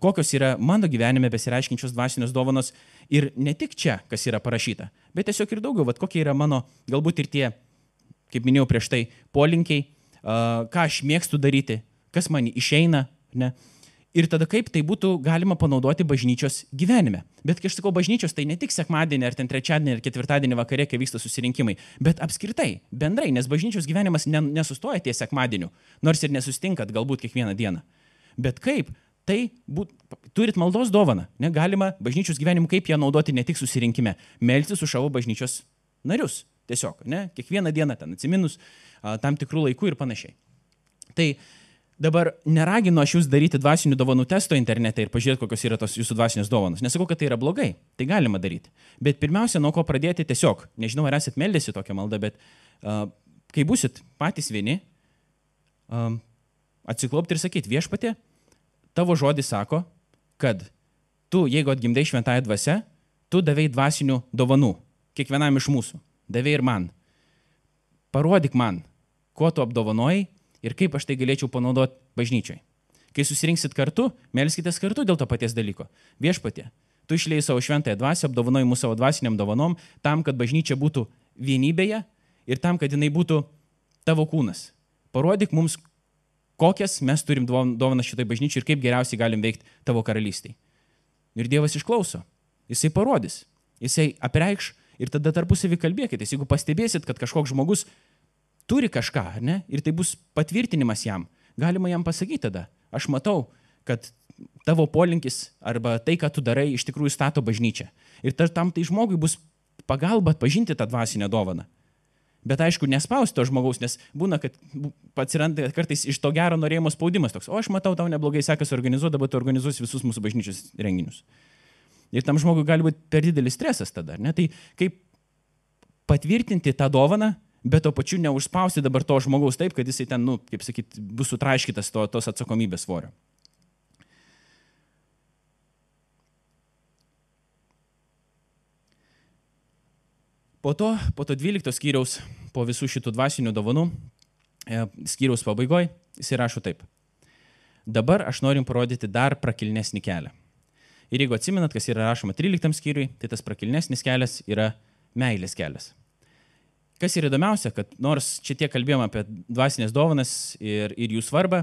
kokios yra mano gyvenime besireiškiančios dvasinios dovanos ir ne tik čia, kas yra parašyta, bet tiesiog ir daugiau, kokie yra mano galbūt ir tie, kaip minėjau prieš tai, polinkiai, ką aš mėgstu daryti, kas man išeina, ne? Ir tada kaip tai būtų galima panaudoti bažnyčios gyvenime. Bet kai aš sakau bažnyčios, tai ne tik sekmadienį, ar ten trečiadienį, ar ketvirtadienį vakare, kai vyksta susirinkimai, bet apskritai, bendrai, nes bažnyčios gyvenimas nesustoja ties sekmadieniu, nors ir nesustinkat galbūt kiekvieną dieną. Bet kaip tai turit maldos dovaną, negalima bažnyčios gyvenimu, kaip ją naudoti ne tik susirinkime, melstis už savo bažnyčios narius, tiesiog, ne, kiekvieną dieną ten atsiminus tam tikrų laikų ir panašiai. Tai dabar neraginu aš jūs daryti dvasinių dovanų testo internete ir pažiūrėti, kokios yra tos jūsų dvasinės dovanos. Nesakau, kad tai yra blogai, tai galima daryti. Bet pirmiausia, nuo ko pradėti tiesiog, nežinau, ar esat meldėsi tokią maldą, bet kai būsit patys vieni, atsiklaupti ir sakyti, viešpatie, tavo žodis sako, kad tu, jeigu atgimdai šventąją dvasią, tu davei dvasinių dovanų, kiekvienam iš mūsų, davei ir man. Parodyk man, kuo tu apdovanojai, ir kaip aš tai galėčiau panaudoti bažnyčiai. Kai susirinksit kartu, melskitės kartu dėl to paties dalyko. Viešpatie, tu išlėjai savo šventąją dvasią, apdovanojai mūsų savo dvasiniam dovanom, tam, kad bažnyčia būtų vienybėje ir tam, kad jinai būtų tavo kūnas. Parodyk mums, kokias mes turim dovanas šitai bažnyčiai ir kaip geriausiai galim veikti tavo karalystėj. Ir Dievas išklauso. Jisai parodys. Jisai apreikš ir tada tarpusavį kalbėkitės. Jeigu pastebėsit, kad kažkoks žmogus turi kažką, ne? Ir tai bus patvirtinimas jam. Galima jam pasakyti tada. Aš matau, kad tavo polinkis arba tai, ką tu darai, iš tikrųjų stato bažnyčią. Ir tam tai žmogui bus pagalba atpažinti tą dvasinę dovaną. Bet aišku, nespausti to žmogaus, nes būna, kad atsiranda kartais iš to gero norėjimo spaudimas toks. O aš matau, tau neblogai sekasi organizuoti, dabar tu organizuosi visus mūsų bažnyčios renginius. Ir tam žmogui gali būti per didelis stresas tada, ne? Tai kaip patvirtinti tą dovaną, bet to pačiu neužspausti dabar to žmogaus taip, kad jisai ten, kaip sakyti, bus sutraiškytas tos atsakomybės svorio. Po to 12 skyriaus, po visų šitų dvasinių dovanų, skyriaus pabaigoje, jisai rašo taip. Dabar aš norim parodyti dar prakilnesnį kelią. Ir jeigu atsimenat, kas yra rašoma 13 skyriui, tai tas prakilnesnis kelias yra meilės kelias. Kas yra įdomiausia, kad nors čia tiek kalbėjom apie dvasinės dovanas ir jų svarbą,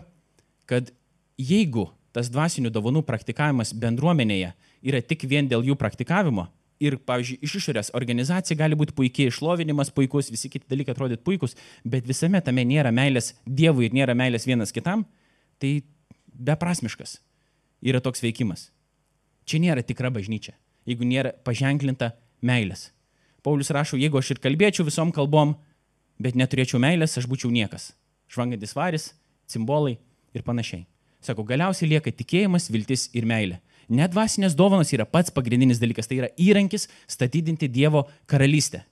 kad jeigu tas dvasinių dovanų praktikavimas bendruomenėje yra tik vien dėl jų praktikavimo ir, pavyzdžiui, iš išorės organizacija gali būti puikiai, išlovinimas puikus, visi kiti dalykai atrodyti puikus, bet visame tame nėra meilės Dievui ir nėra meilės vienas kitam, tai beprasmiškas yra toks veikimas. Čia nėra tikra bažnyčia, jeigu nėra paženklinta meilės. Paulius rašo, jeigu aš ir kalbėčiau visom kalbom, bet neturėčiau meilės, aš būčiau niekas. Žvangantis varis, cimbolai ir panašiai. Sako, galiausiai lieka tikėjimas, viltis ir meilė. Net dvasinės dovanos yra pats pagrindinis dalykas, tai yra įrankis statydinti Dievo karalystę.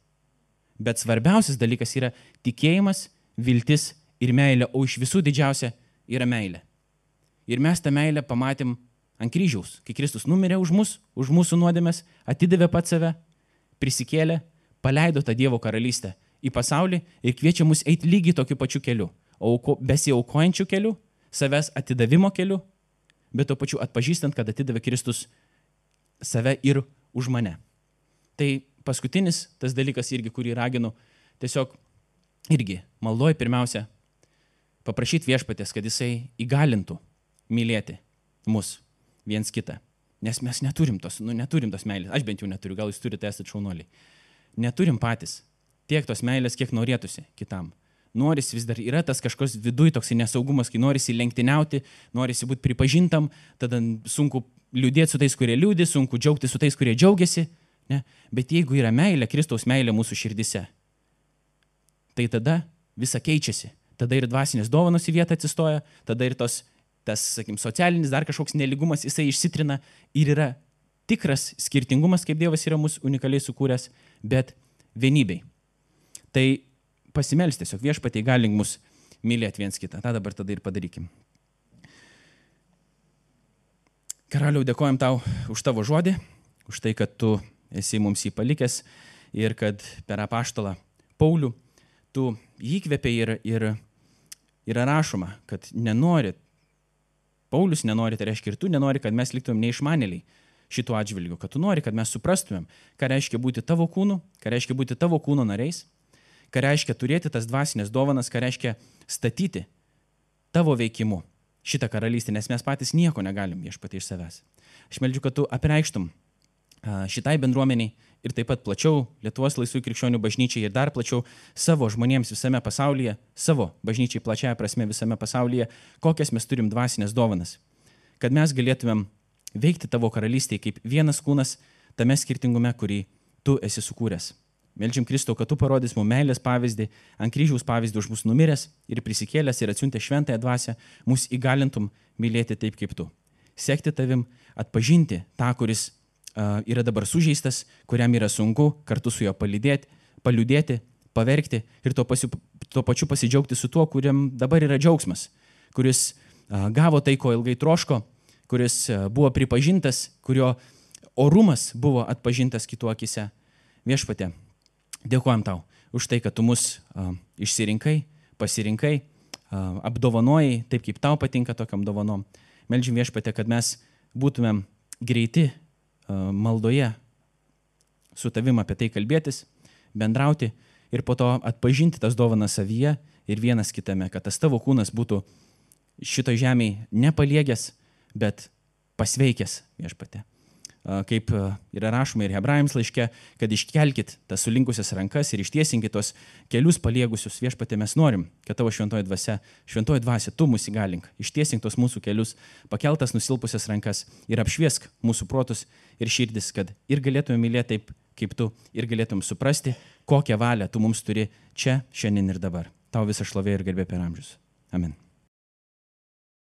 Bet svarbiausias dalykas yra tikėjimas, viltis ir meilė, o iš visų didžiausia yra meilė. Ir mes tą meilę pamatėm ant kryžiaus, kai Kristus numirė už mus, už mūsų nuodėmes, atidavė pats save, prisikėlė, paleido tą Dievo karalystę į pasaulį ir kviečia mus eiti lygiai tokiu pačiu keliu, besiaukojančiu keliu, savęs atidavimo keliu, bet to pačiu atpažįstant, kad atidavė Kristus save ir už mane. Tai paskutinis tas dalykas irgi, kurį raginu, tiesiog irgi maldoj pirmiausia paprašyti viešpatės, kad jisai įgalintų mylėti mus viens kitą. Nes mes neturim tos meilės. Aš bent jau neturiu, gal jūs turite, esate šaunuoliai. Neturim patys tiek tos meilės, kiek norėtųsi kitam. Norisi vis dar, yra tas kažkoks viduj toks nesaugumas, kai norisi lenktyniauti, norisi būti pripažintam, tada sunku liūdėti su tais, kurie liūdi, sunku džiaugti su tais, kurie džiaugiasi. Ne? Bet jeigu yra meilė, Kristaus meilė mūsų širdise, tai tada visa keičiasi. Tada ir dvasinės dovanos į vietą atsistoja, tada ir tas, sakykim, socialinis dar kažkoks neligumas, jisai išsitrina ir yra tikras skirtingumas, kaip Dievas yra mūsų unikaliai sukūręs, bet vienybei. Tai pasimelsti tiesiog viešpatie įgalink mus mylėti viens kitą. Ta dabar tada ir padarykim. Karaliau, dėkojam tau už tavo žodį, už tai, kad tu esi mums jį palikęs ir kad per apaštalą Paulių tu jį įkvėpei ir yra rašoma, kad nenori, Paulius nenori, tai reiškia ir tu nenori, kad mes liktumėm neišmanėliai šituo atžvilgiu, kad tu nori, kad mes suprastumėm, ką reiškia būti tavo kūnu, ką reiškia būti tavo kūno nariais, ką reiškia turėti tas dvasinės dovanas, ką reiškia statyti tavo veikimu šitą karalystę, nes mes patys nieko negalim viešpatie iš savęs. Aš meldžiu, kad tu apreikštum šitai bendruomeniai ir taip pat plačiau Lietuvos laisvųjų krikščionių bažnyčiai ir dar plačiau savo žmonėms visame pasaulyje, savo bažnyčiai plačiaja prasme visame pasaulyje, kokias mes turim dvasinės dovanas. Kad mes galėtumėm veikti tavo karalystėje kaip vienas kūnas tame skirtingume, kurį tu esi sukūręs. Meldžiam Kristau, kad tu parodys mums meilės pavyzdį, ant kryžiaus pavyzdį už mus numiręs ir prisikėlęs ir atsiuntę šventąją dvasią, mus įgalintum mylėti taip kaip tu. Sekti tavim, atpažinti tą, kuris yra dabar sužeistas, kuriam yra sunku kartu su juo paliūdėti, paverkti ir tuo pačiu pasidžiaugti su tuo, kuriam dabar yra džiaugsmas, kuris gavo tai, ko ilgai troško, kuris buvo pripažintas, kurio orumas buvo atpažintas kitų akise. Viešpatie, dėkojam tau už tai, kad tu mus išsirinkai, pasirinkai, apdovanojai taip, kaip tau patinka tokiam dovanom. Meldžiam viešpatie, kad mes būtumėm greiti maldoje su tavim apie tai kalbėtis, bendrauti ir po to atpažinti tas dovanas savyje ir vienas kitame, kad tas tavo kūnas būtų šito žemėje nepaliegęs, bet pasveikęs viešpatie. Kaip yra rašoma ir Hebrajams laiške, kad iškelkit tas sulinkusias rankas ir ištiesinkit tos kelius paliegusius. Viešpatie, mes norim, kad tavo šventoji dvasia, tu mus įgalink, ištiesink tos mūsų kelius, pakeltas nusilpusias rankas ir apšviesk mūsų protus ir širdis, kad ir galėtume mylėti taip, kaip tu, ir galėtume suprasti, kokią valią tu mums turi čia, šiandien ir dabar. Tau visą šlovė ir garbė per amžius. Amen.